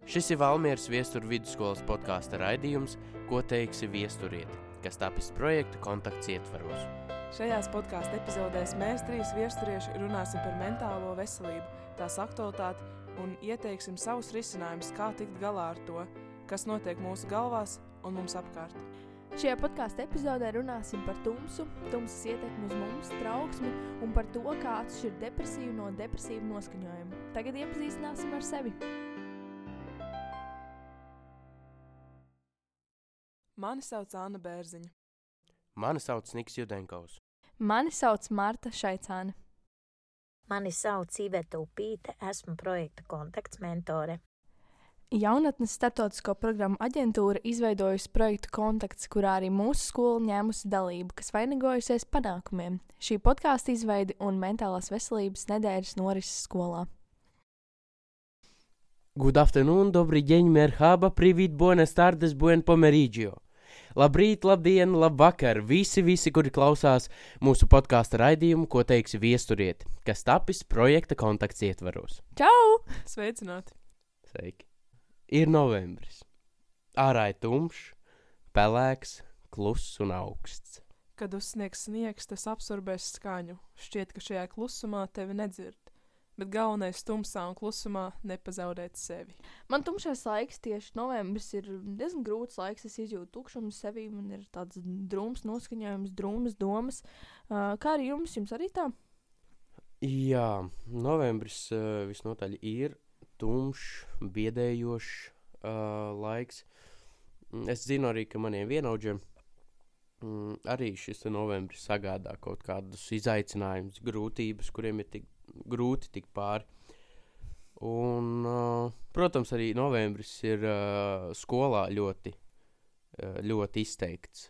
Šis ir Valmieras Viesturu vidusskolas podkāsta raidījums Ko teiksi viesturiet, kas tapis projekta kontakts ietvaros. Šajās podkāstu epizodēs mēs 3 viesturieši runāsim par mentālo veselību, tās aktualitāti un ieteiksim savus risinājumus, kā tikt galā ar to, kas notiek mūsu galvās un mums apkārt. Šajā podkāstu epizodē runāsim par tumsas ietekmi uz mums, trauksmi un par to, kā atšķirt depresīvu no depresīvu noskaņojumu. Tagad iepazīstināsim ar sevi. Mani sauc Anna Bērziņa. Mani sauc Niks Judenkovs. Mani sauc Marta Šaicāne. Mani sauc Iveta Upīte, esmu projekta kontakts mentore. Jaunatnes starptautisko programmu aģentūra izveidojusi projektu kontakts, kurā arī mūsu skola ņēmusi dalību, kas vainagojusies panākumiem. Šī podkāsta izveidi un mentālās veselības nedēļas norises skolā. Good afternoon, dobri deň, merhaba, privīt, buenas tardes, buen pomeriggio. Labrīt, labdien, labvakar, visi, kuri klausās mūsu podkāsta raidījumu, ko teiksi viesturiet, kas tapis projekta kontakts ietvaros. Čau! Sveicināti! Sveiki! Ir novembris. Ārā ir tumšs, pelēks, kluss un augsts. Kad uzsniegs sniegs, tas absorbēs skaņu. Šķiet, ka šajā klusumā tevi nedzird. Bet galvenais tumsā un klusumā nepazaudēt sevi. Man tumšais laiks, tieši novembris, ir diezgan grūts laiks. Es izjūtu tukšumu sevī, man ir tāds drūms noskaņojums, drūmas domas. Kā arī jums? Jums arī tā? Jā, novembris visnotaļ ir tumšs, biedējošs laiks. Es zinu arī, ka maniem vienaudžiem arī šis novembris sagādā kaut kādus izaicinājumus, grūtības, kuriem ir tik grūti tikt pāri. Un, protams, arī novembris ir skolā ļoti izteikts.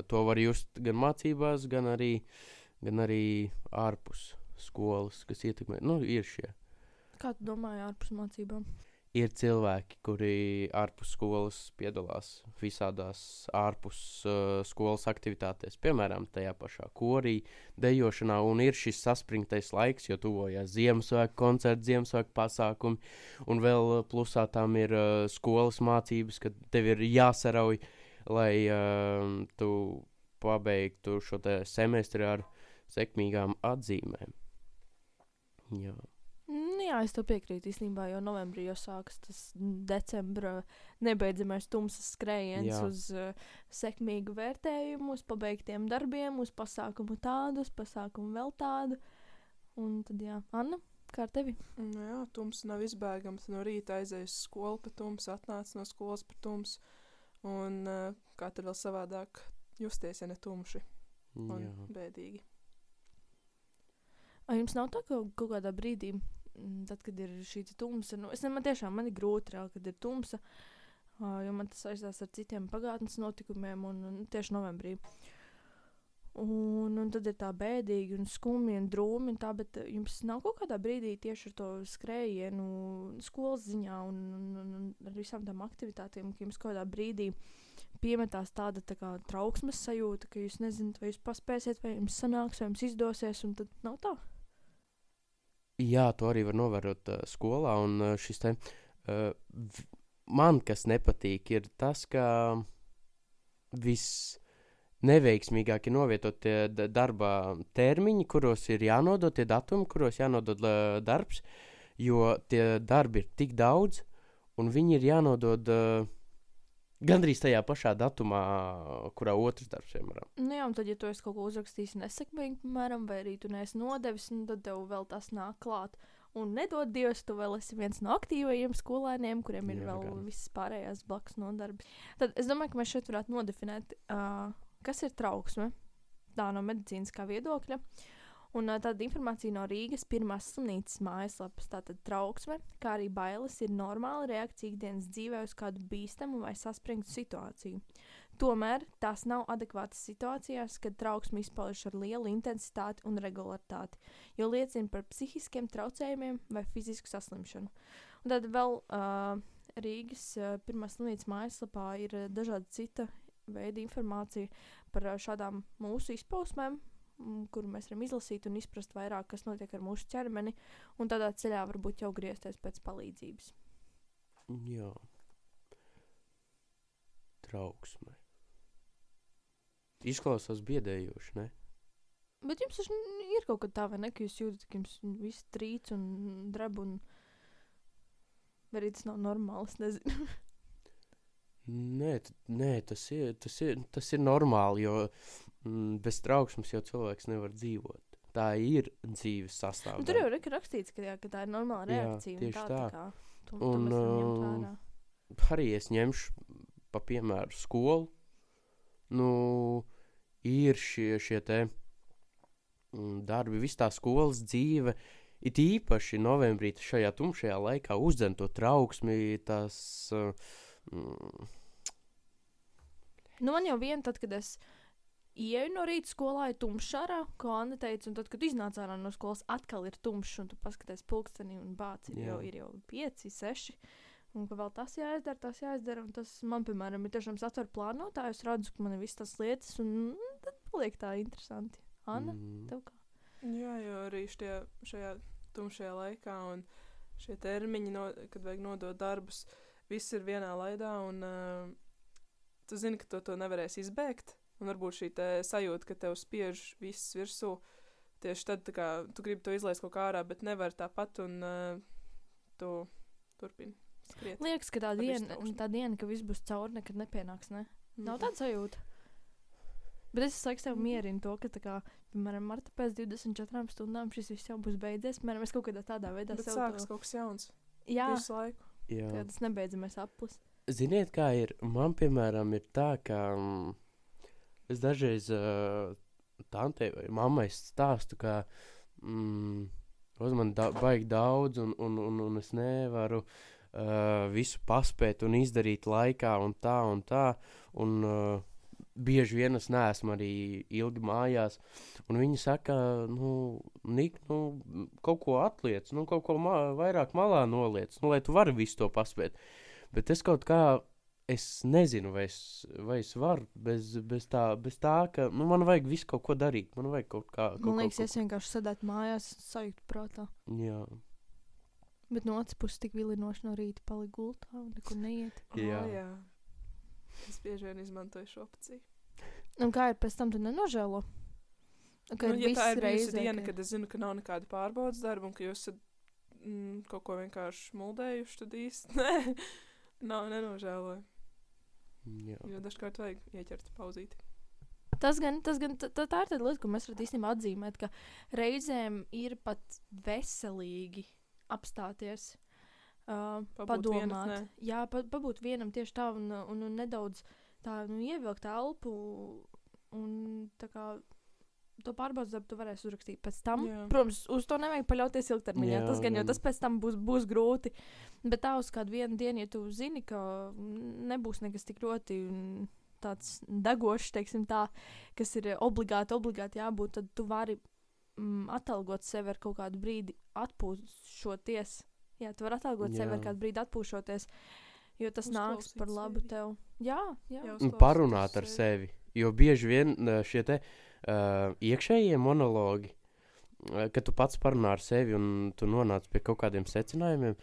To var just gan mācībās, gan arī ārpus skolas, kas ietekmē. Ir šie. Kā tu domāji ārpus mācībām? Ir cilvēki, kuri ārpus skolas piedalās visādās ārpus skolas aktivitātēs, piemēram, tajā pašā korī, dejošanā, un ir šis saspringtais laiks, jo tuvojās Ziemassvētku koncerti, Ziemassvētku pasākumi, un vēl plusā tam ir skolas mācības, kad tev ir jāsarauj, lai tu pabeigtu šo te semestri ar sekmīgām atzīmēm. Jā. Jā, es to piekrītu īstenībā, jo novembrī jau sākas tas decembra nebeidzamais tumsas skrējiens uz sekmīgu vērtējumu, uz pabeigtiem darbiem, uz pasākumu tādu, uz pasākumu vēl tādu. Un tad jā, Anna, kā ar tevi? Jā, tumsa nav izbēgams. No rīta aizies skolu pa tumsu, atnāc no skolas pa tumsu. Un kā tad vēl savādāk justies, ja ne tumši un bēdīgi. Jums nav tā, ka kaut kādā brīdī, tad, kad ir šī tumsa, man ir grūti reāli, kad ir tumsa, jo man tas aizstās ar citiem pagātnes notikumiem un tieši novembrī. Un tad ir tā bēdīgi un skumji un drūmi un tā, bet jums nav kaut kādā brīdī tieši ar to skrējienu skolas ziņā un ar visām tām aktivitātēm, ka jums kaut kādā brīdī piemetās tāda tā kā trauksmes sajūta, ka jūs nezināt, vai jūs paspēsiet, vai jums sanāks, vai jums izdosies, un tad nav tā? Jā, to arī var novērot skolā, un šis te man, kas nepatīk, ir tas, ka neveiksmīgāk ir novietot tie darba termiņi, kuros ir jānodot, tie datumi, kuros jānodod darbs, jo tie darbi ir tik daudz, un viņi ir jānodod gandrīz tajā pašā datumā, kurā otrs darbs, piemēram. Jā, un tad, ja tu esi kaut ko uzrakstījis nesekmīgi, piemēram, vai arī tu neesi nodevis, tad tev vēl tas nāk klāt. Un nedod Dievs, tu vēl esi viens no aktīvajiem skolēniem, kuriem ir visas pārējās blakus nodarbes. Tad es domāju, ka mēs šeit varētu nodefinēt, kas ir trauksme, tā no medicīniskā viedokļa. Un tāda informācija no Rīgas pirmās slimnīcas mājaslapas, tātad trauksme, kā arī bailes ir normāla reakcija ikdienas dzīvē uz kādu bīstamu vai saspringtu situāciju. Tomēr tās nav adekvātas situācijās, kad trauksme izpaužas ar lielu intensitāti un regularitāti, jo liecina par psihiskiem traucējumiem vai fizisku saslimšanu. Un tad vēl Rīgas pirmās slimnīcas mājaslapā ir dažādi cita veida informācija par šādām mūsu izpausmēm, kuru mēs varam izlasīt un izprast vairāk, kas notiek ar mūsu ķermeni, un tādā ceļā varbūt jau griezties pēc palīdzības. Jā. Trauksme. Izklausās biedējoši, ne? Bet jums taču ir kaut kā tā, vai ne, ka jūs jūtat, ka jums viss trīc un dreb un... Vai arī tas nav normāli, es nezinu. Nē, tas ir normāli, jo bez trauksmes jau cilvēks nevar dzīvot. Tā ir dzīves sastāvdaļa. Nu, tur jau ir rakstīts, ka tā ir normāla reakcija. Tieši tā. tā. Kā, to mēs varam ņemt vērā. Arī es ņemšu pa piemēru skolu. Nu, ir šie te darbi, viss tā skolas dzīve, it īpaši novembrī šajā tumšajā laikā uzdzen to trauksmi, tas... Nu, man jau tad, kad es ieju no rīta skolā, ir tumšs ārā, ko Anna teica, un tad, kad iznāc ārā no skolas, atkal ir tumšs, un tu paskaties pulksteni un bāc, ir jau 5, 6, un ka vēl tas jāizdara, un tas man, piemēram, ir tiešām satver plānotā, es redzu, ka man ir viss tas lietas, un tad paliek tā interesanti. Anna, tev kā? Jā, jo arī šajā tumšajā laikā un šie termiņi, kad vajag nodot darbus, viss ir vienā laidā, un tu zini, ka to nevarēs izbēgt, un varbūt šī sajūta, ka tev spiež viss virsū, tieši tad, tā kā, tu gribi to izlaist kaut kā ārā, bet nevar tāpat, un tu turpini skriet. Liekas, ka tā diena, ka viss būs cauri, nekad nepienāks, ne? Nav tāda sajūta. Bet es laiks tev mierinu to, ka tā kā, piemēram, marta pēc 24 stundām šis viss jau būs beidzies, piemēram, es kaut kādā tādā veidā bet sākas kaut kas jauns. Jā. Visu laiku. Jā. Kad tas nebeidzamies aplis. Ziniet, kā ir? Man, piemēram, ir tā, ka es dažreiz tantei vai mammai stāstu, ka uz man baigi daudz un es nevaru visu paspēt un izdarīt laikā un tā, un bieži vien es neesmu arī ilgi mājās, un viņi saka, Nik, kaut ko atliec, kaut ko vairāk malā noliec, lai tu vari visu to paspēt. Bet es kaut kā, es nezinu, vai es varu bez tā, ka, man vajag visu kaut ko darīt, man vajag kaut kā... Man liekas, es vienkārši sēdētu mājās, sajūtu prātā. Jā. Bet no otras puses tik vilinoši no rīta palika gultā un nekur neiet. Jā. Es bieži vien izmantoju šo opciju. Un kā ir pēc tam, tu nenožēlo? Ja tā ir bijusi diena, kad es zinu, ka nav nekāda pārbaudas darba un ka jūs esat kaut ko vienkārši muldējuši, tad īsti nenožēloju. Jā. Jo dažkārt vajag ieķert pauzīti. Tā ir tāda lieta, ko mēs varam īstenībā atzīmēt, ka reizēm ir pat veselīgi apstāties, padomāt. Jā, pabūt vienam tieši tā un nedaudz tā, ievilkt elpu un tā kā to pārbaudas darbu tu varēsi uzrakstīt pēc tam. Jā. Protams, uz to nevajag paļauties ilgtermiņā. Tas gan, jo tas pēc tam būs grūti. Bet tā uz kādu vienu dienu, ja tu zini, ka nebūs nekas tik ļoti tāds degošs, teiksim tā, kas ir obligāti jābūt, tad tu vari atalgot sevi ar kaut kādu brīdi atpūšoties. Jā, tu vari atalgot sevi ar kādu brīdi atpūšoties, jo tas nāks par labu tev. Jā. Un parunāt ar sevi, jo bieži vien šie te iekšējie monologi, kad tu pats parunā ar sevi un tu nonāc pie kaut kādiem secinājumiem,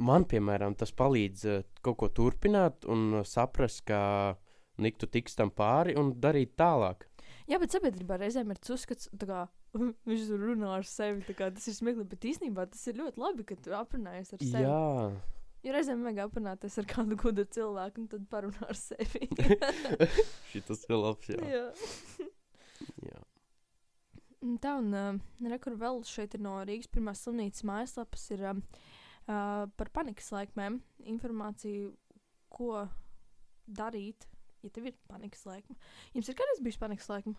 man, piemēram, tas palīdz kaut ko turpināt un saprast, ka tu tiks tam pāri un darīt tālāk. Jā, bet sabiedrībā reizēm ir tas uzskats, tā kā viņš runā ar sevi, tā kā tas ir smieklīgi, bet īstenībā tas ir ļoti labi, ka tu aprunājies ar sevi. Jā. Jo reizēm vajag aprunāties ar kādu gudru cilvēku un tad parunā ar sevi. Šitas ir labs, jā. Jā. Tā, un rekur vēl šeit ir no Rīgas pirmās slimnīcas mājaslapas ir par panikas laikmēm informāciju, ko darīt, ja tev ir panikas laikme. Jums ir kādreiz bijuši panikas laikme?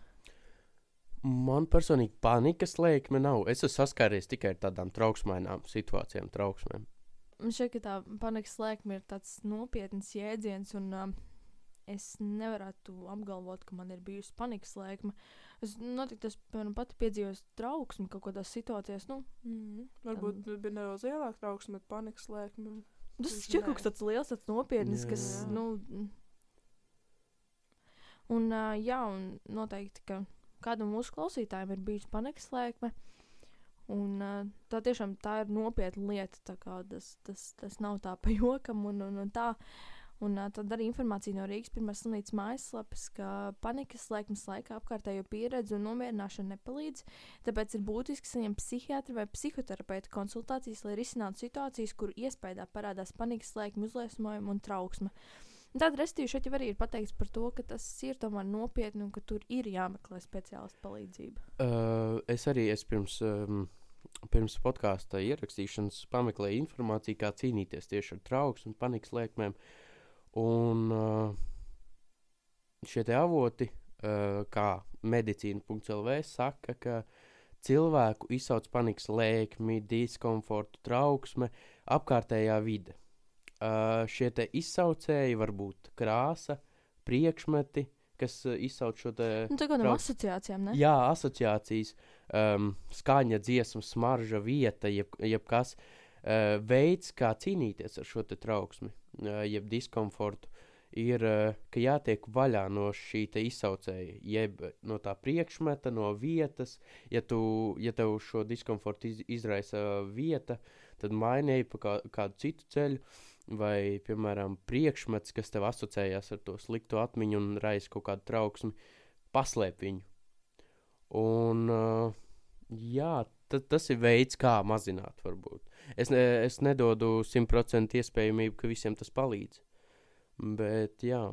Man personīgi panikas laikme nav. Es esmu saskāries tikai ar tādām trauksmainām situācijām, trauksmēm. Man šķiet, ka tā panikas laikme ir tāds nopietns jēdziens, un es nevarētu apgalvot, ka man ir bijusi panikas laikme. Es noteikti pati piedzīvos trauksmi kaut kādās situācijās. Varbūt bija nedaudz lielāka trauksme, bet panikas laikme. Tas šķiet kaut kas tāds liels, tāds nopietnis, kas, Un noteikti, ka kādam mūsu klausītājiem ir bijusi panikas laikme. Un tā tiešām tā ir nopietna lieta, tā kā tas nav tā pa jokam un tā. Un tad arī informācija no Rīgas pirmās slimnīcas mājaslapas, ka panikas slēgšanas laikā apkārtējo pieredzi un nomierināšana nepalīdz, tāpēc ir būtiski saņemt psihiatra vai psihoterapeitu konsultācijas, lai risinātu situācijas, kur iespējā parādās panikas slēguma uzliesmojumi un trauksme. Tāda restīva šeit jau arī ir pateikts par to, ka tas ir tomēr nopietni un ka tur ir jāmeklē speciālistu palīdzība. Es pirms podkāsta ierakstīšanas pameklēju informāciju, kā cīnīties tieši ar trauksmu un panikas lēkmēm. Un šie te avoti, kā medicīna.lv, saka, ka cilvēku izsauc panikas lēkmi, diskomfortu, trauksme, apkārtējā vide. Šie te izsaucēji var būt krāsa, priekšmeti, kas izsauc šo te... Tā kā no asociācijām, ne? Jā, asociācijas, skaņa, dziesma, smarža, vieta, jebkas. Veids, kā cīnīties ar šo te trauksmi, jeb diskomfortu, ir, ka jātiek vaļā no šī te izsaucēja, jeb no tā priekšmeta, no vietas. Ja tev šo diskomfortu izraisa vieta, tad mainīji pa kādu citu ceļu, vai, piemēram, priekšmets, kas tev asociējās ar to sliktu atmiņu un raisa kaut kādu trauksmi, paslēp viņu. Un, jā, tas ir veids, kā mazināt, varbūt. Es nedodu 100% iespējamību, ka visiem tas palīdz. Bet, jā.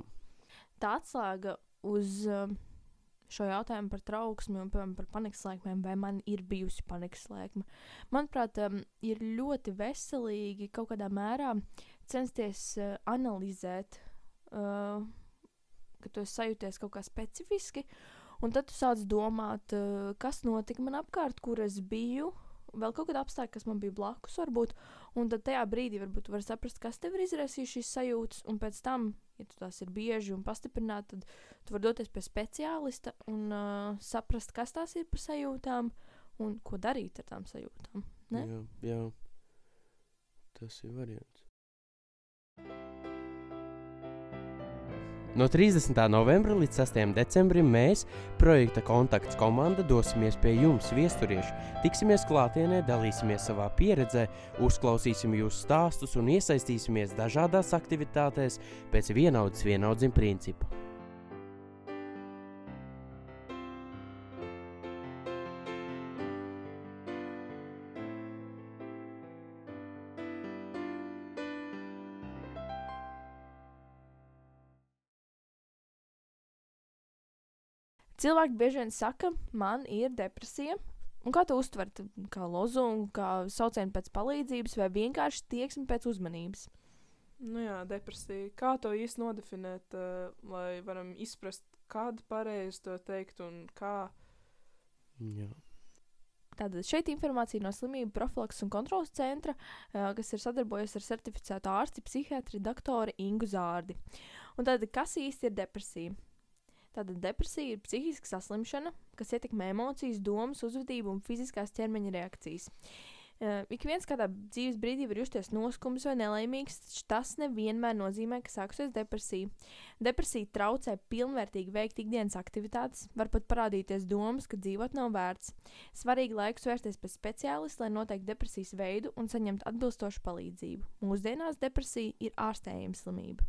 Tā atslēga uz šo jautājumu par trauksmi un par panikas lēkmēm, vai man ir bijusi panikas lēkme. Manuprāt, ir ļoti veselīgi kaut kādā mērā censties analizēt, ka tu esi sajūties kaut kā specifiski, un tad tu sāc domāt, kas notika man apkārt, kur es biju, vēl kaut kāda apstākļa, kas man bija blakus varbūt, un tad tajā brīdī varbūt tu vari saprast, kas tev ir izraisījis šīs sajūtas, un pēc tam, ja tu tās ir bieži un pastiprināti, tad tu vari doties pie speciālista un saprast, kas tās ir par sajūtām un ko darīt ar tām sajūtām. Ne? Jā. Tas ir variants. No 30. novembra līdz 6. decembrim mēs, projekta Kontakts komanda, dosimies pie jums, viesturieši. Tiksimies klātienē, dalīsimies savā pieredzē, uzklausīsim jūsu stāstus un iesaistīsimies dažādās aktivitātēs pēc vienaudzim principa. Cilvēki bieži vien saka, man ir depresija. Un kā tu uztver? Kā lozungu, kā saucienu pēc palīdzības vai vienkārši tieksmi pēc uzmanības? Nu jā, depresija. Kā to īsti nodefinēt, lai varam izprast, kādu pareizi to teikt un kā? Jā. Tātad šeit informācija no Slimību profilakses un kontrolas centra, kas ir sadarbojies ar certificētu ārsti, psihiatri, doktori Ingu Zārdi. Un tātad, kas īsti ir depresija? Tātad depresija ir psihiska saslimšana, kas ietekmē emocijas, domas, uzvedību un fiziskās ķermeņa reakcijas. Ik viens kādā dzīves brīdī var justies noskums vai nelaimīgs, taču tas nevienmēr nozīmē, ka sākusies depresija. Depresija traucē pilnvērtīgi veikt ikdienas aktivitātes, var pat parādīties domas, ka dzīvot nav vērts. Svarīgi laikus vērsties pie speciālista, lai noteiktu depresijas veidu un saņemt atbilstošu palīdzību. Mūsdienās depresija ir ārstējama slimība.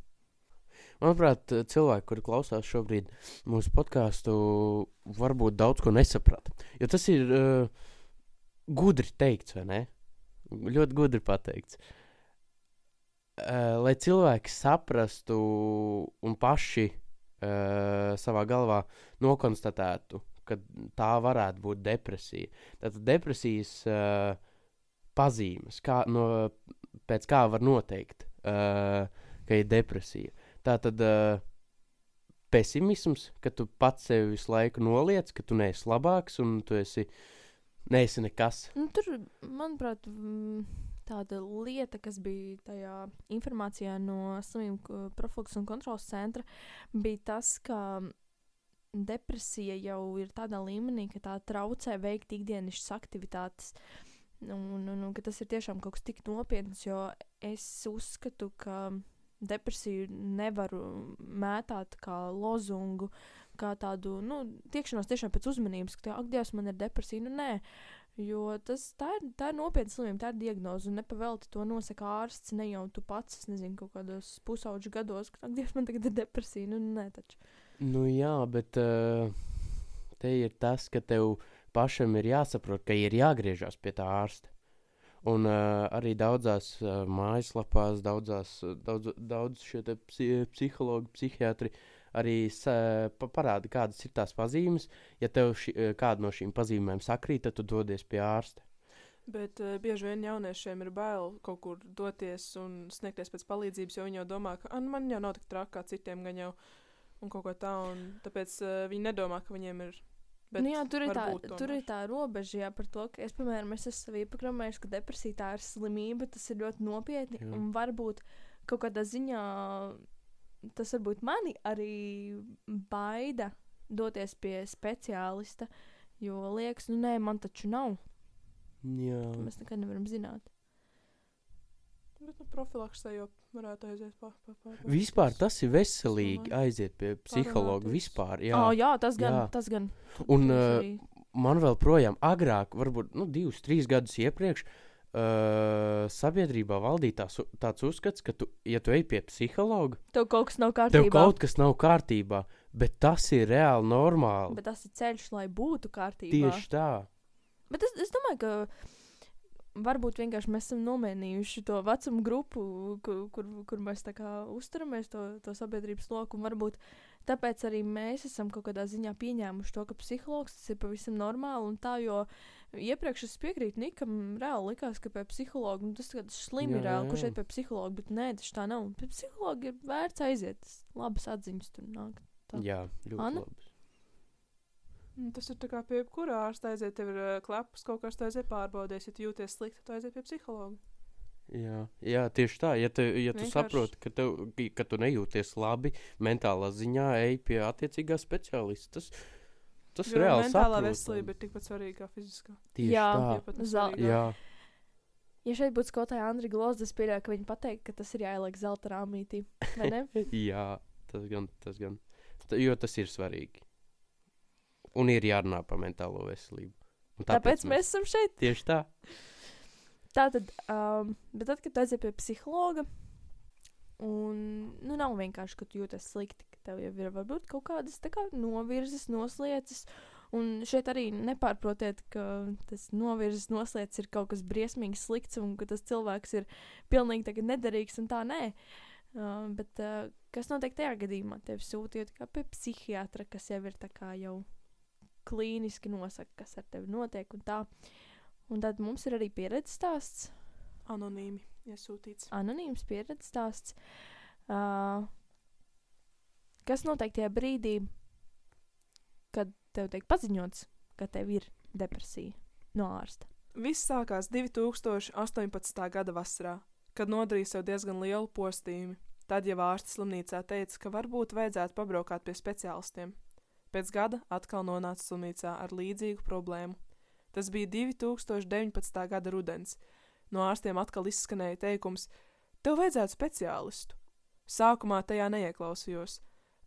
Manuprāt, cilvēki, kuri klausās šobrīd mūsu podcastu, varbūt daudz ko nesaprata. Jo tas ir gudri teikts, vai ne? Ļoti gudri pateikts. Lai cilvēki saprastu un paši savā galvā nokonstatētu, ka tā varētu būt depresija. Tātad depresijas pazīmes, pēc kā var noteikt, ka ir depresija. Tātad pesimisms, ka tu pats sevi visu laiku noliec, ka tu neesi labāks un tu neesi nekas. Tur, manuprāt, tāda lieta, kas bija tajā informācijā no Slimību profilakses un kontrolas centra, bija tas, ka depresija jau ir tādā līmenī, ka tā traucē veikt ikdienišķas aktivitātes. Un ka tas ir tiešām kaut kas tik nopietns, jo es uzskatu, ka depresiju nevaru mētāt kā lozungu, kā tādu, tiekšanos tiešām pēc uzmanības, ka ak, Dievs, man ir depresija. Nē, Jo tā ir nopietna slimība, tā ir diagnoze, un nepavelti to nosaka ārsts, ne jau tu pats, es nezinu, kaut kādos pusauģu gados, ka Dievs, man tagad ir depresija, nē, taču. Nu jā, bet te ir tas, ka tev pašam ir jāsaprot, ka ir jāgriežas pie tā ārsta. Un arī daudzās mājaslapās, daudz šie te psihologi, psihiatri arī parāda, kādas ir tās pazīmes. Ja tev kāda no šīm pazīmēm sakrīt, tad tu dodies pie ārsta. Bet bieži vien jauniešiem ir bail kaut kur doties un sniegties pēc palīdzības, jo viņi jau domā, ka man jau nav tik traki kā citiem gan jau un kaut ko tā, un tāpēc viņi nedomā, ka viņiem ir. Bet jā, tur ir tā robeža par to, ka es, piemēram, esmu sev ieprogrammējis, ka depresija tā ir slimība, tas ir ļoti nopietni, un varbūt kaut kādā ziņā tas varbūt mani arī baida doties pie speciālista, jo liekas, nē, man taču nav. Jā. Mēs nekad nevaram zināt. Bet profilaksē jau varētu aiziet Vispār tas ir veselīgi aiziet pie psihologa vispār. Jā, tas gan. Un man vēl projām agrāk, varbūt 2-3 gadus iepriekš, sabiedrībā valdīja tāds uzskats, ka ja tu ej pie psihologa, tev kaut kas nav kārtībā. Bet tas ir reāli normāli. Bet tas ir ceļš, lai būtu kārtībā. Tieši tā. Bet es domāju, ka varbūt vienkārši mēs esam nomainījuši to vecumu grupu, kur mēs tā kā uzturamies to sabiedrības loku, un varbūt tāpēc arī mēs esam kaut kādā ziņā pieņēmuši to, ka psihologs tas ir pavisam normāli, un tā, jo iepriekš es piekrītu Nikam, reāli likās, ka pie psihologa, tas tāds slimi reāli, kurš iet pie psihologa, bet nē, tas tā nav. Pie psihologa ir vērts aiziet, labas atziņas tur nāk. Tā. Jā, ļoti Anna? labas. Tas ir tā kā pie jebkurā ārsta aiziet, tev ir klepus, kaut kas tu aiziet pārbaudēs, ja tu jūties slikti, tu aiziet pie psihologa. Jā, tieši tā. Ja tu saproti, ka tu nejūties labi mentālā ziņā, ej pie attiecīgā speciālista. Tas jo reāli mentālā saprotami. veselība ir tikpat svarīga kā fiziskā. Tieši Jā. tā. Jā. Ja šeit būtu skolotāja Andri Glozda, es pieļauju, ka viņi pateikt, ka tas ir jāieliek zelta rāmītī, vai ne? Jā, tas gan. Jo tas ir svarīgi. Un ir jārunā par mentālo veselību. Un Tāpēc mēs esam šeit. Tieši tā. Tātad, bet tad, kad tu aiziet pie psihologa, un nav vienkārši, ka tu jūties slikti, ka tev jau ir varbūt kaut kādas tā kā novirzes, noslieces, un šeit arī nepārprotiet, ka tas novirzes, noslieces ir kaut kas briesmīgi slikts, un ka tas cilvēks ir pilnīgi tagad nederīgs, un tā nē. Bet kas notiek tajā gadījumā? Tevi sūtījot kā pie psihiatra, kas jau ir tā kā jau klīniski nosaka, kas ar tevi notiek, un tā. Un tad mums ir arī pieredzes stāsts. Anonīmi iesūtīts. Anonīms pieredzes stāsts. Kas notiek tajā brīdī, kad tev tiek paziņots, ka tev ir depresija no ārsta? Viss sākās 2018. gada vasarā, kad nodarīja sev diezgan lielu postījumu. Tad jau ārsts slimnīcā teica, ka varbūt vajadzētu pabraukāt pie speciālistiem. Pēc gada atkal nonāca slimnīcā ar līdzīgu problēmu. Tas bija 2019. gada rudens. No ārstiem atkal izskanēja teikums: tev vajadzētu speciālistu. Sākumā tajā neieklausījos,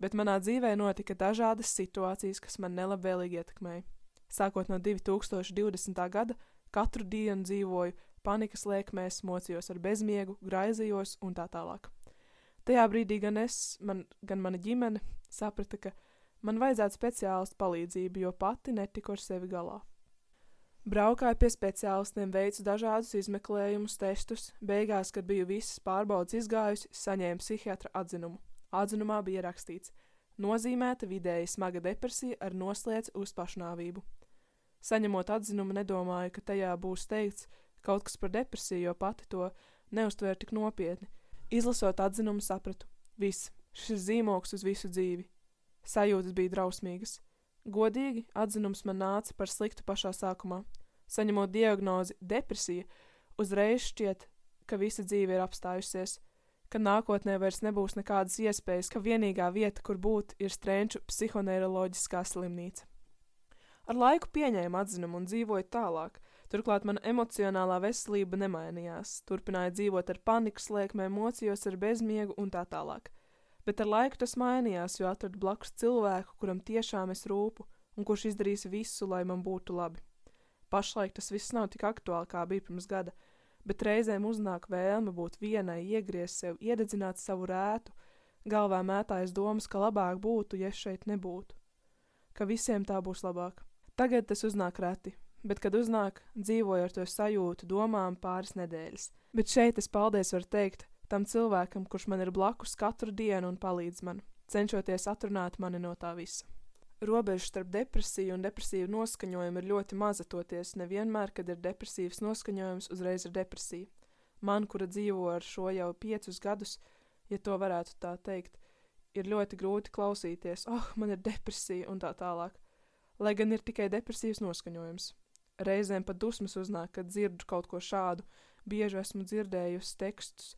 bet manā dzīvē notika dažādas situācijas, kas man nelabvēlīgi ietekmēja. Sākot no 2020. gada, katru dienu dzīvoju panikas lēkmēs, mocījos ar bezmiegu, graizījos un tā tālāk. Tajā brīdī gan mana ģimene saprata, ka man vajadzētu speciālistu palīdzību, jo pati netiku ar sevi galā. Braukāju pie speciālistiem, veicu dažādus izmeklējumus, testus. Beigās, kad biju visas pārbaudes izgājusi, saņēmu psihiatra atzinumu. Atzinumā bija rakstīts: nozīmēta vidēji smaga depresija ar noslēdz uz pašnāvību. Saņemot atzinumu, nedomāju, ka tajā būs teikts kaut kas par depresiju, jo pati to neuztvēru tik nopietni. Izlasot atzinumu, sapratu: viss, šis ir zīmogs uz visu dzīvi. Sajūtas bija drausmīgas. Godīgi, atzinums man nāca par sliktu pašā sākumā. Saņemot diagnozi depresija, uzreiz šķiet, ka visa dzīve ir apstājusies, ka nākotnē vairs nebūs nekādas iespējas, ka vienīgā vieta, kur būt, ir Strenču psihoneiroloģiskā slimnīca. Ar laiku pieņēmu atzinumu un dzīvoju tālāk. Turklāt mana emocionālā veselība nemainījās. Turpināju dzīvot ar panikas lēkmēm, mocījos ar bezmiegu un tā tālāk. Bet ar laiku tas mainījās, jo atradu blakus cilvēku, kuram tiešām es rūpu un kurš izdarīs visu, lai man būtu labi. Pašlaik tas viss nav tik aktuāli, kā bija pirms gada, bet reizēm uznāk vēlme būt vienai, iegriezt sev, iededzināt savu rētu, galvā mētājas domas, ka labāk būtu, ja es šeit nebūtu. Ka visiem tā būs labāk. Tagad tas uznāk reti, bet kad uznāk, dzīvoju ar to sajūtu domām pāris nedēļas. Bet šeit es paldies varu teikt tam cilvēkam, kurš man ir blakus katru dienu un palīdz man, cenšoties atrunāt mani no tā visa. Robeža starp depresiju un depresīvu noskaņojumu ir ļoti maza, toties nevienmēr, kad ir depresīvs noskaņojums, uzreiz ir depresija. Man, kura dzīvo ar šo jau 5 gadus, ja to varētu tā teikt, ir ļoti grūti klausīties, man ir depresija un tā tālāk, lai gan ir tikai depresīvs noskaņojums. Reizēm pat dusmas uznāk, kad dzirdu kaut ko šādu, bieži esmu dzirdējusi tekstus,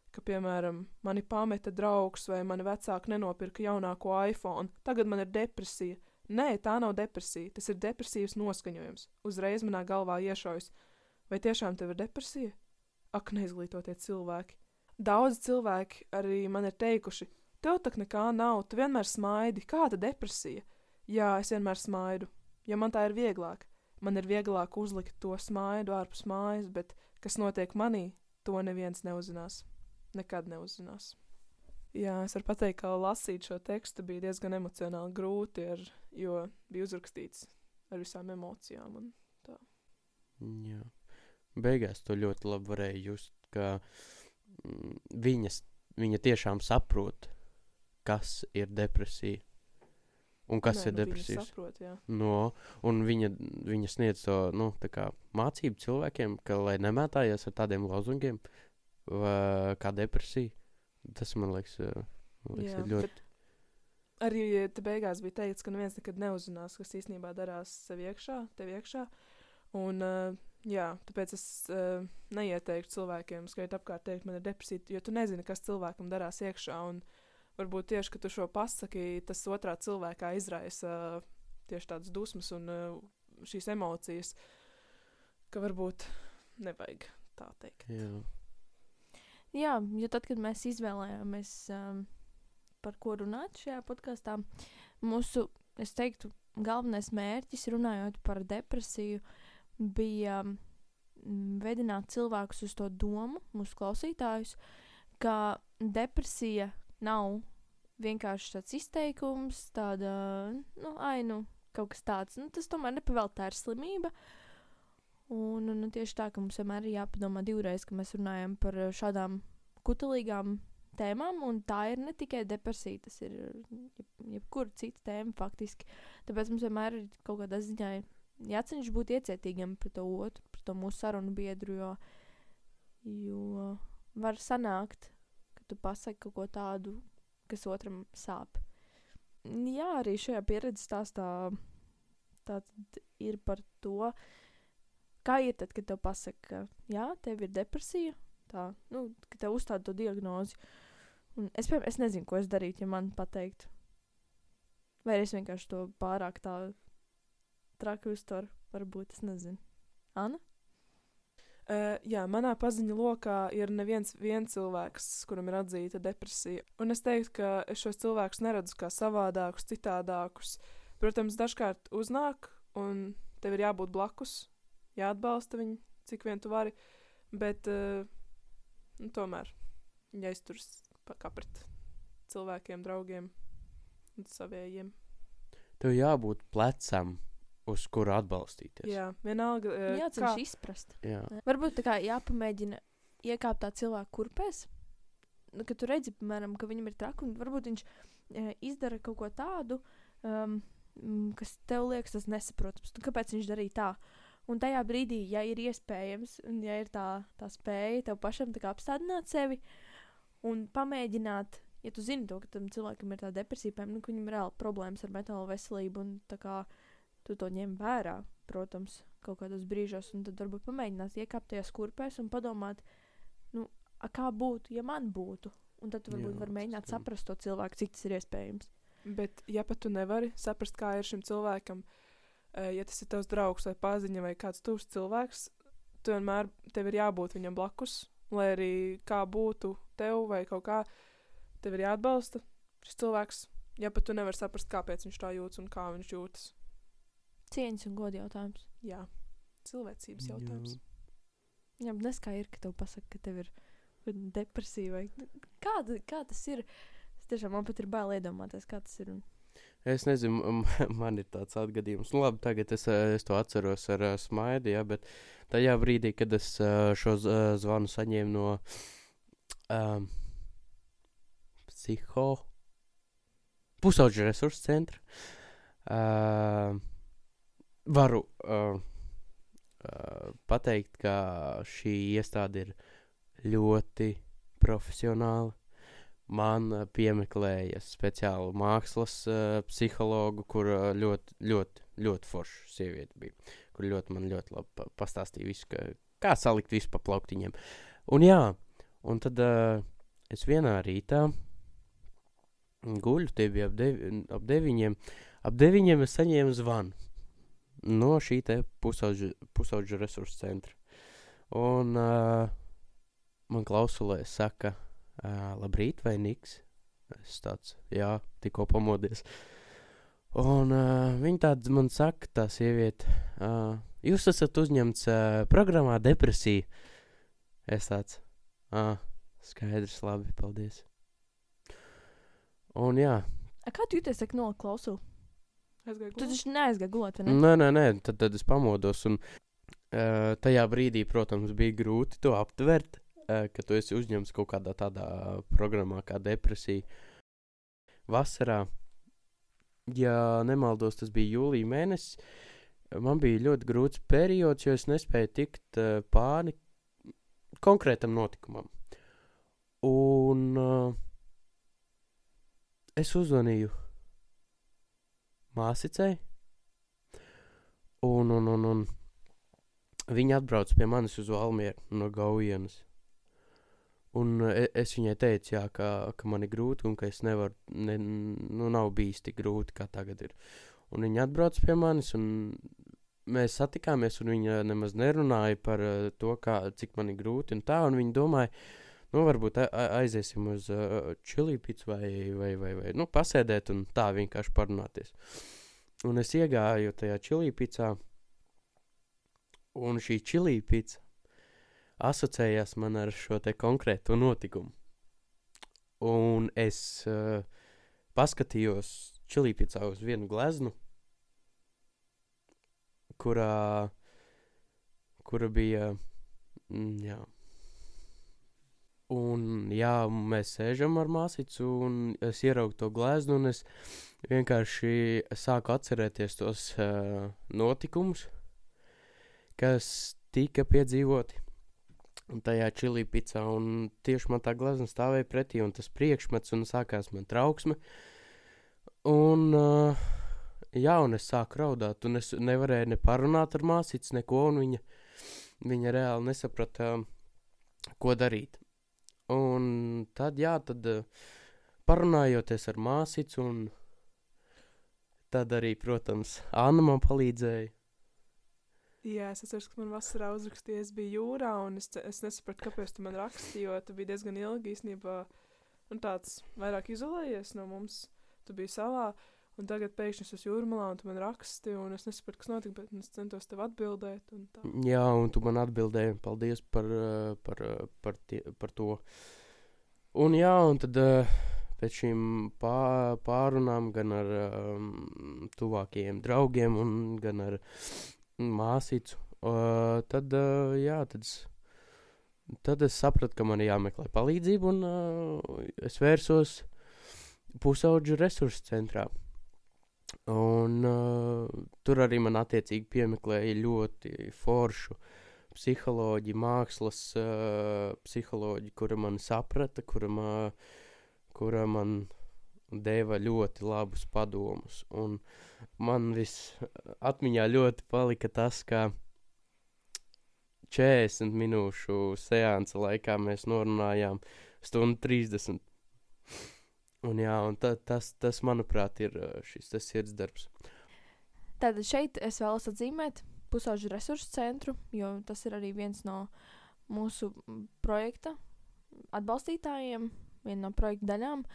ka, piemēram, mani pameta draugs vai mani vecāki nenopirka jaunāko iPhone, tagad man ir depresija. Nē, tā nav depresija, tas ir depresīvs noskaņojums. Uzreiz manā galvā iešaujas, vai tiešām tev ir depresija? Ak, neizglītotie cilvēki. Daudz cilvēki arī man ir teikuši, tev tak nekā nav, tu vienmēr smaidi, kāda depresija? Jā, es vienmēr smaidu, ja man tā ir vieglāk. Man ir vieglāk uzlikt to smaidu ārpus mājas, bet kas notiek manī, to neviens neuzzinās. Nekad neuzzinās. Jā, es varu pateikt, ka lasīt šo tekstu bija diezgan emocionāli grūti, jo bija uzrakstīts ar visām emocijām un tā. Jā. Beigās to ļoti labi varēja just, ka viņa tiešām saprot, kas ir depresija. Un kas ir depresijas? Viņa saprot, jā. Un viņa sniedz to, tā kā mācību cilvēkiem, ka, lai nemētājies ar tādiem lozungiem, kā depresija. Tas, man liekas, jā, ir ļoti... Arī te beigās bija teikts, ka neviens nekad neuzzinās, kas īstenībā darās tev iekšā. Un, jā, tāpēc es neieteiktu cilvēkiem skriet apkārt teikt, man ir depresija, jo tu nezini, kas cilvēkam darās iekšā. Un varbūt tieši, ka tu šo pasaki, tas otrā cilvēkā izraisa tieši tādas dusmas un šīs emocijas, ka varbūt nevajag tā teikt. Jā, jo tad, kad mēs izvēlējāmies, par ko runāt šajā podkastā, mūsu, es teiktu, galvenais mērķis, runājot par depresiju, bija vedināt cilvēkus uz to domu, mūsu klausītājus, ka depresija nav vienkārši tāds izteikums, tāda, kaut kas tāds. Tas tomēr nepavēl, tā ir slimība. Un tieši tā, ka mums vienmēr ir jāpadomā divreiz, ka mēs runājam par šādām kutelīgām tēmām, un tā ir ne tikai depresija, tas ir jebkura cita tēma faktiski. Tāpēc mums vienmēr ir kaut kādā ziņā jācenšas būt iecietīgiem pret to otru, pret to mūsu sarunu biedru, jo var sanākt, ka tu pasaki kaut ko tādu, kas otram sāp. Jā, arī šajā pieredzes stāstā tātad ir par to, kā ir tad, kad tev pasaka, ka jā, tev ir depresija, tā, ka tev uzstāda to diagnozi. Un es nezinu, ko es darītu, ja man pateiktu. Vai es vienkārši to pārāk tā traki uztveru, varbūt, es nezinu. Anna? Jā, manā paziņu lokā ir neviens cilvēks, kuram ir atzīta depresija. Un es teiktu, ka es šos cilvēkus neredzu kā savādākus, citādākus. Protams, dažkārt uznāk, un tev ir jābūt blakus, jāatbalsta viņu, cik vien tu vari, bet tomēr jāizturas kā pret cilvēkiem, draugiem un savējiem. Tev jābūt plecam, uz kuru atbalstīties. Jā, vienalga. Jācenš izprast. Jā. Varbūt tā kā jāpamēģina iekāpt tā cilvēku kurpēs, ka tu redzi, piemēram, ka viņam ir traki, un varbūt viņš izdara kaut ko tādu, kas tev liekas tas nesaprotams. Kāpēc viņš darīja tā? Un tajā brīdī, ja ir iespējams, un ja ir tā spēja tev pašam tā kā apstādināt sevi un pamēģināt, ja tu zini to, ka tam cilvēkam ir tā depresija, ka viņam ir reāli problēmas ar mentālo veselību, un tā kā tu to ņem vērā, protams, kaut kādos brīžos, un tad varbūt pamēģināt iekāpt tajās kurpēs un padomāt, kā būtu, ja man būtu. Un tad tu varbūt var mēģināt saprast to cilvēku, cik tas ir iespējams. Bet, ja pat tu nevari saprast, kā ir šim cilvēkam, ja tas ir tavs draugs vai paziņa vai kāds tuvs cilvēks, tu vienmēr tev ir jābūt viņam blakus, lai arī kā būtu tev vai kaut kā, tev ir jāatbalsta šis cilvēks, ja pat tu nevari saprast, kāpēc viņš tā jūtas un kā viņš jūtas. Cieņas un goda jautājums. Jā, cilvēcības jautājums. Jā, bet nes kā ir, ka tev pasaka, ka tev ir depresija vai kā tas ir? Es tiešām man pat ir bail iedomāties, kā tas ir. Es nezinu, man ir tāds atgadījums. Nu, labi, tagad es to atceros ar smaidu, ja, bet tajā brīdī, kad es šo zvanu saņēmu no pusauģu resursu centra, varu pateikt, ka šī iestāde ir ļoti profesionāla. Man piemeklēja speciālu mākslas psihologu, kur ļoti forša sieviete bija, kur man ļoti labi pastāstīja visu, kā salikt visu pa plauktiņiem. Un jā, un tad es vienā rītā guļu, tie bija ap 9. Ap 9 es saņēmu zvanu no šī te pusauģu resursu centra. Un man klausulē saka, labrīt, vai Niks? Es tāds, jā, tikko pamodies. Un viņa tāds man saka, tā sieviete, jūs esat uzņemts programmā depresija. Es tāds, skaidrs, labi, paldies. Un jā. Kā tu jūties, ka noklausu? Aizgāju Tu gulēt. taču neaizgāji gulēt, vai ne? Nē, tad es pamodos. Un tajā brīdī, protams, bija grūti to aptvert, ka tu esi uzņemts kaut kādā tādā programmā kā depresija. Vasarā, ja nemaldos, tas bija jūlija mēnesis, man bija ļoti grūts periods, jo es nespēju tikt pāri konkrētam notikumam. Un es uzzvanīju māsicei, un viņa atbrauc pie manis uz Valmieru no Gaujienas. Un es viņai teicu, jā, ka man ir grūti un ka es nevaru, nav bijis tik grūti, kā tagad ir. Un viņa atbrauc pie manis un mēs satikāmies un viņa nemaz nerunāja par to, cik man ir grūti un tā. Un viņa domāja, varbūt aiziesim uz čili picu vai pasēdēt un tā vienkārši parunāties. Un es iegāju tajā čili picā un šī čili pica asociējās man ar šo te konkrēto notikumu. Un es paskatījos čilīpicā uz vienu gleznu, kura bija, jā. Un jā, mēs sēžam ar māsicu un es ieraugu to gleznu un es vienkārši sāku atcerēties tos notikumus, kas tika piedzīvoti. Un tajā čili picā, un tieši man tā glezna stāvēja pretī, un tas priekšmets, un sākās man trauksme. Un, un es sāku raudāt, un es nevarēju ne parunāt ar māsītes, neko, un viņa reāli nesaprata, ko darīt. Un tad parunājoties ar māsīcu, un tad arī, protams, Anna man palīdzēja. Jā, es atceros, ka man vasarā uzrakstīja, es biju jūrā, un es nesapratu, kāpēc tu man rakstīji, jo tu biji diezgan ilgi īstenībā, un tāds vairāk izolējies no mums, tu biji salā, un tagad pēkšņi es esmu jūrmalā, un tu man raksti, un es nesapratu, kas notika, bet es centos tev atbildēt, un tā. Jā, un tu man atbildēji, un paldies par to. Un jā, un tad pēc šīm pārunām gan ar tuvākajiem draugiem, un gan ar māsīcu, tad es sapratu, ka man jāmeklē palīdzību, un es vērsos pusauģu resursu centrā. Un tur arī man attiecīgi piemeklēja ļoti foršu psiholoģi, mākslas psiholoģi, kura man saprata, kura man deva ļoti labus padomus. Un man atmiņā ļoti palika tas, ka 40 minūšu seansa laikā mēs norunājām 1:30. Un jā, un tas manuprāt, ir šis sirdsdarbs. Tātad šeit es vēlos atzīmēt pusauģu resursu centru, jo tas ir arī viens no mūsu projekta atbalstītājiem, viena no projekta daļām,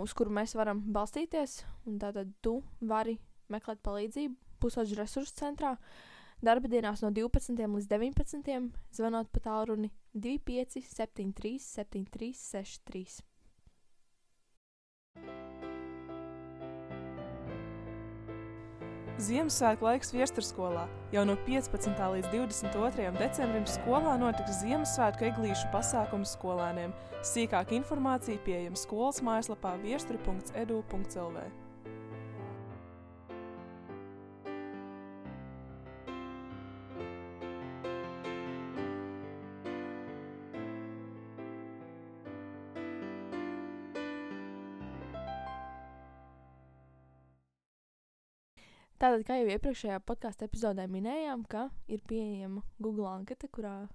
uz kuru mēs varam balstīties, un tātad tu vari meklēt palīdzību pusauģu resursu centrā. Darba dienās no 12 līdz 19, zvanot pa tālruni 25 73 73 63. Ziemassvētku laiks Viestursskolā. Jau no 15. līdz 22. decembrim skolā notiks Ziemassvētku eglīšu pasākums skolēniem. Sīkāka informācija pieejama skolas mājaslapā viesturi.edu.lv. Tātad, kā jau iepriekšējā podkāstu epizodē minējām, ka ir pieejama Google anketa, kurā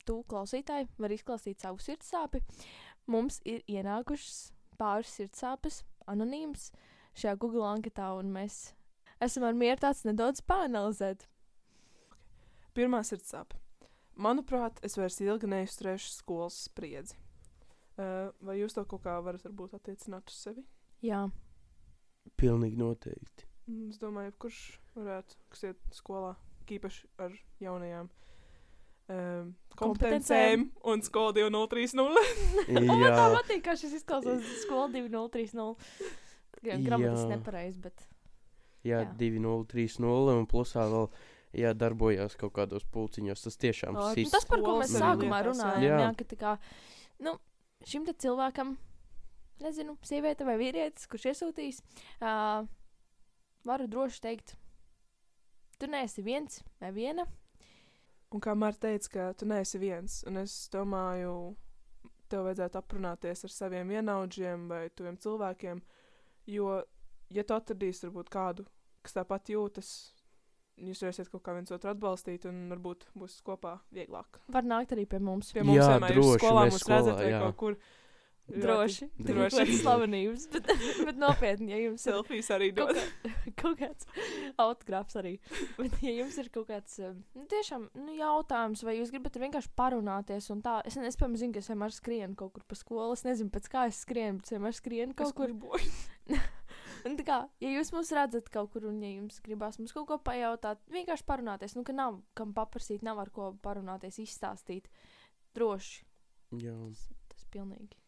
tu, klausītāji, var izklāstīt savu sirdsāpi. Mums ir ienākušas pāris sirdsāpes, anonīmas šajā Google anketā, un mēs esam ar mieru tāds nedaudz pāanalizēt. Pirmā sirdsāpe. Manuprāt, es vairs ilgi neizturēšu skolas spriedzi. Vai jūs to kaut kā varat varbūt attiecināt uz sevi? Jā. Pilnīgi noteikti. Es domāju, kurš varētu, kas iet skolā, īpaši ar jaunajām kompetencēm un skolu 2030. Man tā patīk, kā šis izklausās skolu 2030. Gramatiski nepareizi, bet... Jā, 2030 un plusā vēl darbojās kaut kādos pulciņos. Tas tiešām tas, par ko mēs sākumā runājam, jā, ka tā kā, šim te cilvēkam, nezinu, sieviete vai vīrietis, kurš iesūtīs, varu droši teikt, tu neesi viens vai viena. Un kā Marta teica, ka tu neesi viens, un es domāju, tev vajadzētu aprunāties ar saviem vienaudžiem vai tuviem cilvēkiem, jo, ja tu atradīsi varbūt kādu, kas tāpat jūtas, jūs varēsiet kaut kā viens otru atbalstīt, un varbūt būs kopā vieglāk. Var nākt arī pie mums. Pie mums vienmēr droši, skolā mums skolā, redzat vai jā. kaut kur. Droši. Slavenības, bet nopietni, ja jums ir selfijas arī dod. Kaut kāds autogrāfs arī. Bet, ja jums ir kaut kāds tiešām jautājums, vai jūs gribat vienkārši parunāties un tā, es piemēram zinu, ka es vienmēr skrienu kaut kur pa skolu, es nezinu, pēc kā es skrienu, bet es vienmēr skrienu kaut kur. Un tā kā, ja jūs mūs redzat kaut kur un ja jums gribās mums kaut ko pajautāt, vienkārši parunāties, ka nav kam paprasīt, nav ar ko parunāties, izstāstīt. Droši. Jā. Tas pilnīgi.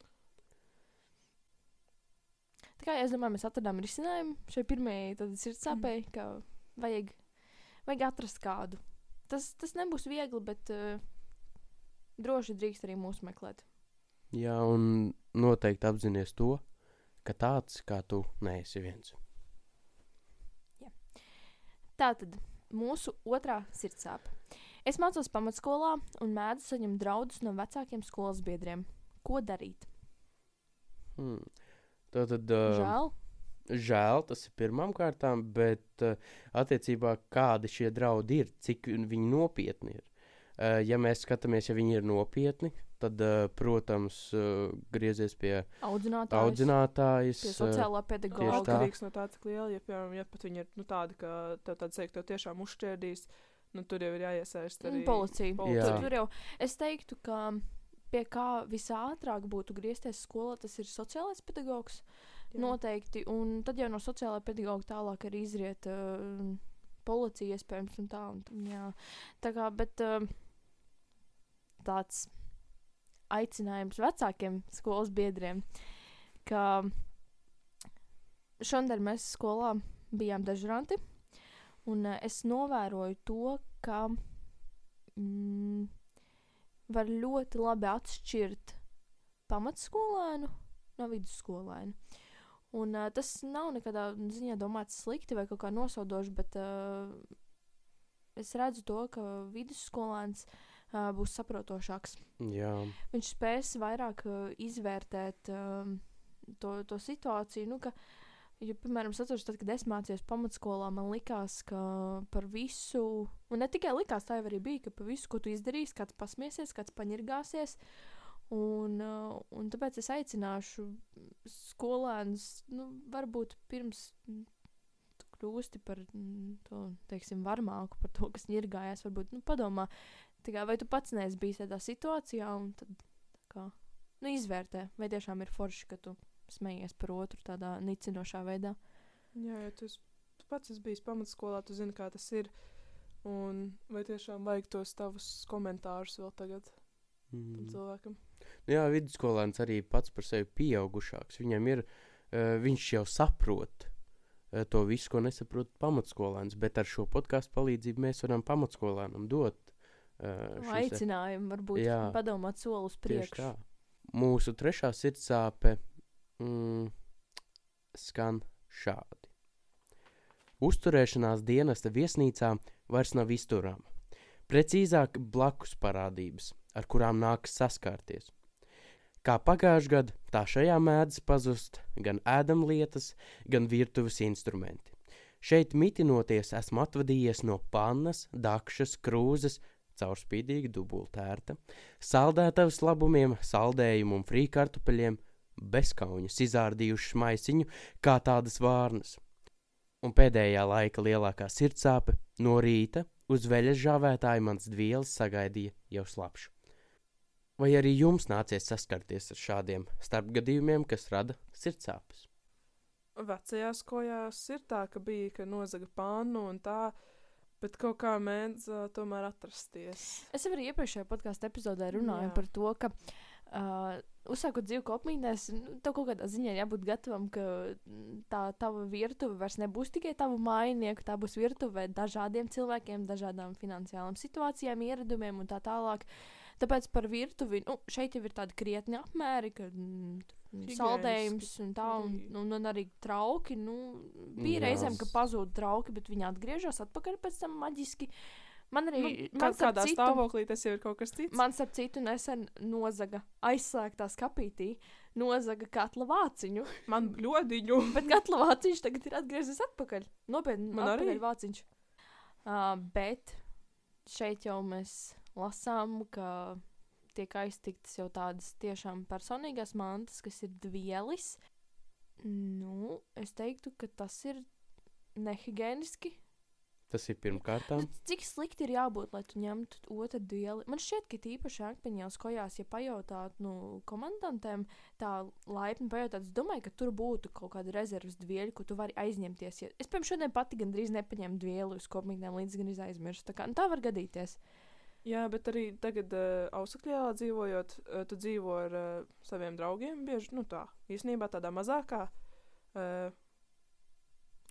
Tā kā es domāju, mēs atradām risinājumu šai pirmajai sirdsāpei, ka vajag atrast kādu. Tas nebūs viegli, bet droši drīkst arī mūs meklēt. Jā, un noteikti apzinies to, ka tāds kā tu neesi viens. Jā. Tātad mūsu otrā sirdsāpe. Es mācos pamatskolā un mēdzu saņemt draudus no vecākiem skolas biedriem. Ko darīt? Tātad, Žēl, tas ir pirmām kārtām, bet attiecībā kādi šie draudi ir, cik viņi nopietni ir. Ja mēs skatāmies, ja viņi ir nopietni, tad, protams, griezies pie audzinātājas. Pie sociālā pedagoga. Atkarīgs no tā, cik liela, ja, piemēram, ja pat viņi ir tādi, ka tev tāds sēk, tev tiešām uzšķērdīs, tur jau ir jāiesaist arī policija. Tur jau, es teiktu, ka pie kā visātrāk būtu griezties skolā, tas ir sociālais pedagogs. Jā. Noteikti, un tad jau no sociālā pedagoga tālāk arī izriet policija iespējams un tā. Jā. Tā kā, bet tāds aicinājums vecākiem skolas biedriem, ka šodien mēs skolā bijām dežuranti, un es novēroju to, ka var ļoti labi atšķirt pamatskolēnu no vidusskolēnu. Un tas nav nekādā ziņā domāts slikti vai kaut kā nosaudoši, bet es redzu to, ka vidusskolēns būs saprotošāks. Jā. Viņš spēs vairāk izvērtēt to situāciju, ka, ja, piemēram, es atceros, tad, kad es mācījos pamatskolā, man likās, ka par visu, un ne tikai likās, tā jau arī bija, ka par visu, ko tu izdarīsi, kāds pasmiesies, kāds paņirgāsies, un tāpēc es aicināšu skolēnus, varbūt pirms tu kļūsti par to, teiksim, varmāku, par to, kas ņirgājās, varbūt, padomā, vai tu pats neesi bijis tādā situācijā, un tad, izvērtē, vai tiešām ir forši, ka tu smejies par otru tādā nicinošā veidā. Jā, ja tu pats esi bijis pamatskolā, tu zini, kā tas ir. Un vai tiešām vajag tos tavus komentārus vēl tagad tam cilvēkam? Jā, vidusskolēns arī pats par sevi pieaugušāks. Viņam ir, viņš jau saprot to visu, ko nesaprot pamatskolēns, bet ar šo podcastu palīdzību mēs varam pamatskolēnam dot aicinājumu, varbūt padomāt soli uz priekšu. Mūsu trešā sirdsāpe skan šādi. Uzturēšanās dienesta viesnīcā vairs nav izturama. Precīzāk blakus parādības, ar kurām nākas saskārties. Kā pagājušajā gadā, tā šajā mēdz pazust gan ēdamlietas, gan virtuves instrumenti. Šeit mitinoties esmu atvadījies no pannas, dakšas, krūzes, caurspīdīga dubultērta, saldētavas labumiem, saldējumu un frīkartupeļiem, bezkauņas izārdījušas maisiņu kā tādas vārnas. Un pēdējā laika lielākā sirdsāpe no rīta uz veļas žāvētāju mans dvielis sagaidīja jau slapšu. Vai arī jums nācies saskarties ar šādiem starpgadījumiem, kas rada sirdsāpes? Vecajās kojās ir tā, ka bija, ka nozaga pannu un tā, bet kaut kā mēdz tomēr atrasties. Es jau arī iepriekšējā podkāstu epizodē runāju par to, ka uzsākot dzīvi kopmītnēs, tev kaut kādā ziņā jābūt gatavam, ka tā tava virtuve vairs nebūs tikai tavu mājinieku, tā būs virtuve dažādiem cilvēkiem, dažādām finansiālām situācijām, ieradumiem un tā tālāk. Tāpēc par virtuvi, šeit jau ir tādi krietni apmēri, ka saldējums un tā, un arī trauki, bija reizēm, ka pazūd trauki, bet viņi atgriežas atpakaļ pēc tam maģiski. Man arī, kādā stāvoklī tas jau ir kaut kas cits. Man starp citu nesen nozaga aizslēgtā skapītī, nozaga katla vāciņu. Man ļodiņu. Bet katla vāciņš tagad ir atgriezies atpakaļ. Nopietni, man atpakaļ arī vāciņš. Bet šeit jau mēs lasām, ka tiek aiztiktas jau tādas tiešām personīgās mantas, kas ir dvielis. Es teiktu, ka tas ir nehigieniski. Tas ir pirmkārtām. Cik slikti ir jābūt, lai tu ņemtu otru dvieli? Man šķiet, ka tīpaši akmeņās kojās, ja pajautāt komandantēm, tā laipni pajautāt, es domāju, ka tur būtu kaut kāda rezervas dvieļa, ko tu vari aizņemties. Es, piemēram, šodien pati gandrīz nepaņēmu dvieli uz kopmītnēm, līdz gan aizmirstu. Tā var gadīties. Jā, bet arī tagad Ausakļielā dzīvojot, tu dzīvo ar saviem draugiem bieži, īstenībā tādā mazākā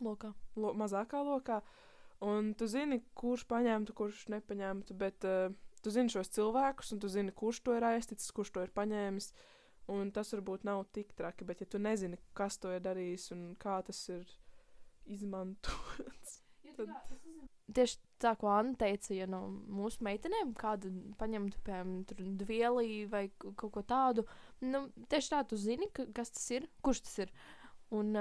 lokā. Mazākā lokā. Un tu zini, kurš paņemtu, kurš nepaņemtu, bet tu zini šos cilvēkus, un tu zini, kurš to ir aizticis, kurš to ir paņēmis, un tas varbūt nav tik traki, bet ja tu nezini, kas to ir darījis un kā tas ir izmantots, tad... Tieši tā, ko Anna teica, ja no mūsu meitenēm kādu paņemtu, piemēram, dvieli vai kaut ko tādu, tieši tā tu zini, kas tas ir, kurš tas ir, un...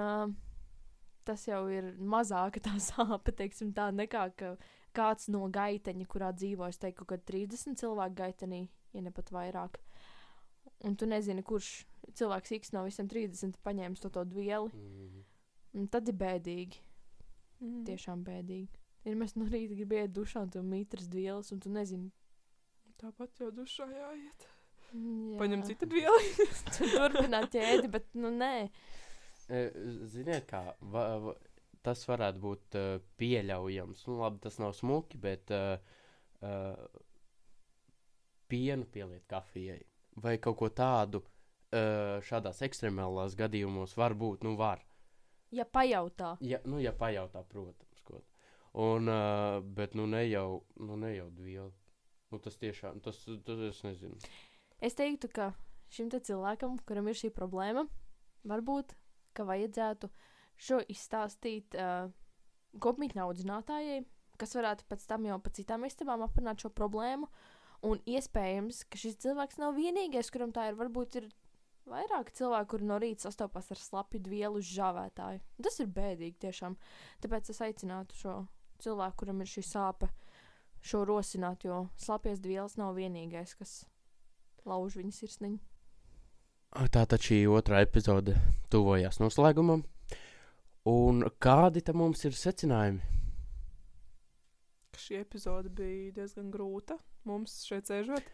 tas jau ir mazāka tā sāpe, teiksim tā, nekā ka kāds no gaiteņa, kurā dzīvo, es teiktu, ka 30 cilvēku gaitenī, ja ne pat vairāk. Un tu nezini, kurš cilvēks X no visiem 30 paņēmis to dvieli. Un tad ir bēdīgi. Tiešām bēdīgi. Ir mēs no rīta gribi iet dušā un tu mītras dvielas, un tu nezini. Tāpat jau dušā jāiet. Jā. Paņem citu dvieli. Tu turpināt ķēdi, bet nē. Ziniet, kā tas varētu būt pieļaujams. Labi, tas nav smuki, bet pienu pieliet kafijai vai kaut ko tādu šādās ekstremālās gadījumos var būt, var. Ja pajautā. Ja pajautā, protams. Un, bet ne jau dvieli. Tas tiešām, tas es nezinu. Es teiktu, ka šim te cilvēkam, kuram ir šī problēma, varbūt ka vajadzētu šo izstāstīt kopmītņu audzinātājai, kas varētu pēc tam jau pa citām istabām aprunāt šo problēmu, un iespējams, ka šis cilvēks nav vienīgais, kuram tā ir, varbūt ir vairāk cilvēku, kuri no rīta sastopās ar slapju dvielu uz žāvētāju. Tas ir bēdīgi tiešām, tāpēc es aicinātu šo cilvēku, kuram ir šī sāpe, šo rosināt, jo slapjas dvielas nav vienīgais, kas lauž viņa sirsniņu. Tātad šī otrā epizode tuvojās noslēgumam. Un kādi tam mums ir secinājumi? Šī epizode bija diezgan grūta mums šeit sēžot.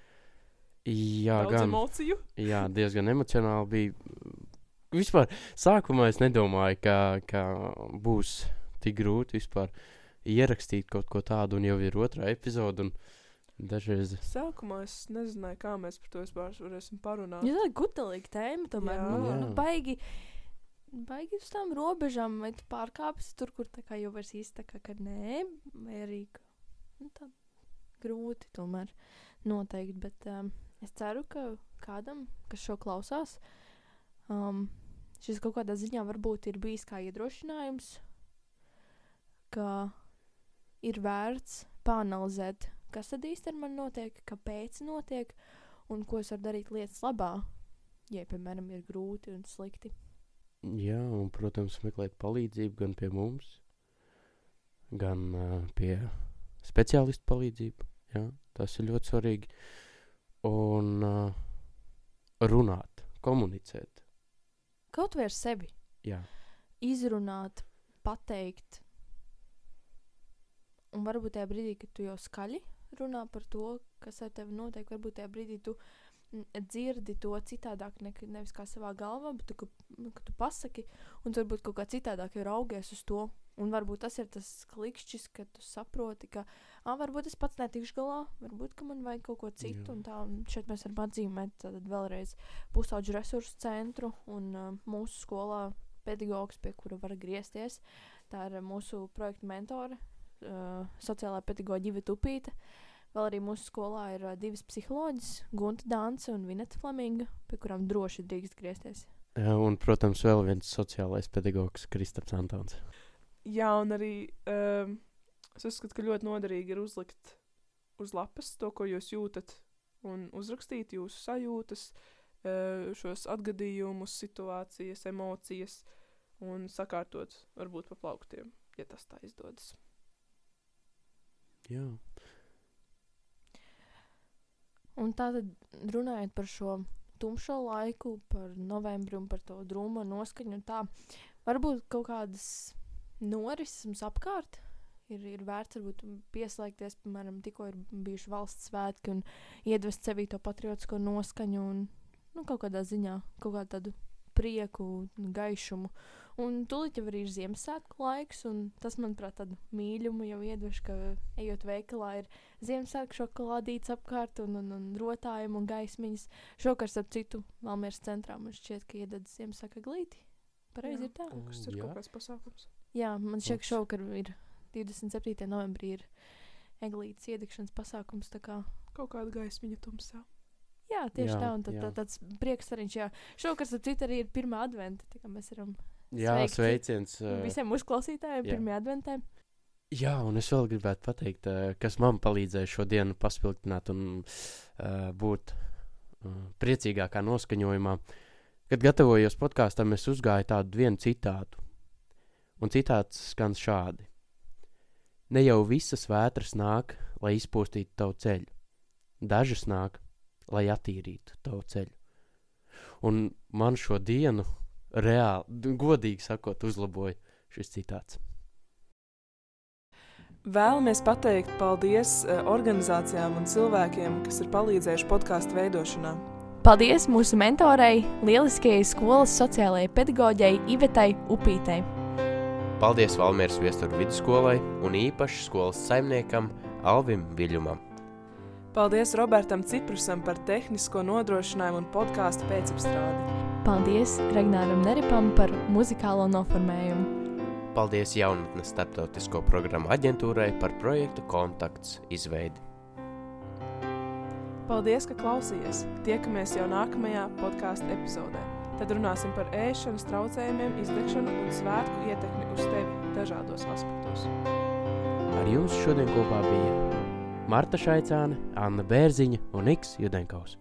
Jā, daudz emociju. Jā, diezgan emocionāli bija. Vispār, sākumā es nedomāju, ka būs tik grūti vispār. ierakstīt kaut ko tādu, un jau ir otrā epizode, un dažreiz... Sākumā es nezināju, kā mēs par to vispār varēsim parunāt. Ja tā ir gutelīga tēma, tomēr, Jā. baigi uz tām robežām, vai tu pārkāpsi tur, kur tā kā jau vairs īsti tā kā, ka nē, vai arī, tā grūti tomēr noteikti, bet es ceru, ka kādam, kas šo klausās, šis kaut kādā ziņā varbūt ir bijis kā iedrošinājums, ka ir vērts pāanalizēt, kas tad īsti ar mani notiek, kāpēc notiek, un ko es varu darīt lietas labā, ja, piemēram, ir grūti un slikti. Jā, un, protams, meklēt palīdzību gan pie mums, gan pie speciālistu palīdzību. Jā, tas ir ļoti svarīgi. Un runāt, komunicēt. Kaut vai ar sevi. Jā. Izrunāt, pateikt. Un varbūt tajā brīdī, kad tu jau skaļi runā par to, kas ar tevi notiek, varbūt tajā brīdī tu dzirdi to citādāk, nevis kā savā galvā, bet ka tu pasaki, un tu varbūt kaut kā citādāk jau raugies uz to. Un varbūt tas ir tas klikšķis, ka tu saproti, ka varbūt es pats netikšu galā, varbūt, ka man vajag kaut ko citu. Jā. Un tā, un šeit mēs varam atzīmēt tad vēlreiz Pusauģu resursu centru un mūsu skolā pedagogs, pie kura var griezties. Tā ir mūsu projekta mentore, sociālā pedagoģa Iveta Upīte. Vēl arī mūsu skolā ir 2 psiholoģis, Gunta Dānce un Vineta Flaminga, pie kurām droši drīkst griezties. Jā, un, protams, vēl viens sociālais pedagogs, Kristaps Antons. Jā, un arī es uzskatu, ka ļoti noderīgi ir uzlikt uz lapas to, ko jūs jūtat, un uzrakstīt jūsu sajūtas, šos atgadījumus, situācijas, emocijas, un sakārtot varbūt pa plauktiem, ja tas tā izdodas. Jā. Un tātad runājot par šo tumšo laiku, par novembri un par to drūmo noskaņu un tā, varbūt kaut kādas norises apkārt ir vērts varbūt pieslēgties, piemēram, tikko ir bijuši valsts svētki un iedvest sevī to patriotisko noskaņu un kaut kādā ziņā, kaut kādu tādu prieku, gaišumu. Un tūlīt jau arī ir Ziemassvētku laiks, un tas, manuprāt, tādu mīļumu jau iedveš, ka ejot veikalā ir Ziemassvētku šokolādītes apkārt un rotājumi un gaismiņas. Šokar, starp citu, Valmieras centrā man šķiet, ka iededz Ziemassvētku eglīti. Pareizi ir tā? Tas ir kaut kāds pasākums. Jā, man šķiet, ka šokar ir 27. novembrī ir eglītes iedegšanas pasākums, tā kā. Kaut kāda gaismiņa tumsā. Jā, tieši tā, un tāds prieks ariņš, jā. Šokar, starp citu, arī ir 1. adventa, tā kā mēs varam sveiciens visiem uzklausītājiem 1. adventē. Jā, un es vēl gribētu pateikt, kas man palīdzēja šo dienu paspilgtināt un būt priecīgākā noskaņojumā. Kad gatavojos podkāstam, es uzgāju tādu vienu citātu. Un citāts skan šādi. Ne jau visas vētras nāk, lai izpostītu tavu ceļu. Dažas nāk, lai attīrītu tavu ceļu. Un man šo dienu reāli, godīgi sakot, uzlaboja šis citāts. Vēlamies pateikt paldies organizācijām un cilvēkiem, kas ir palīdzējuši podkāstu veidošanā. Paldies mūsu mentorei, lieliskajai skolas sociālajai pedagoģei Ivetai Upītei. Paldies Valmieras Viesturu vidusskolai un īpaši skolas saimniekam Alvim Viļumam. Paldies Robertam Ciprusam par tehnisko nodrošinājumu un podkāstu pēcapstrādi. Paldies Regnāram Neripam par muzikālo noformējumu. Paldies Jaunatnes starptautisko programmu aģentūrai par projektu Kontakts izveidi. Paldies, ka klausījies! Tiekamies jau nākamajā podkāstu epizodē. Tad runāsim par ēšanas traucējumiem, izdegšanu un svētku ietekmi uz tevi dažādos aspektos. Ar jums šodien kopā bija Marta Šaicāne, Anna Bērziņa un Niks Judenkaus.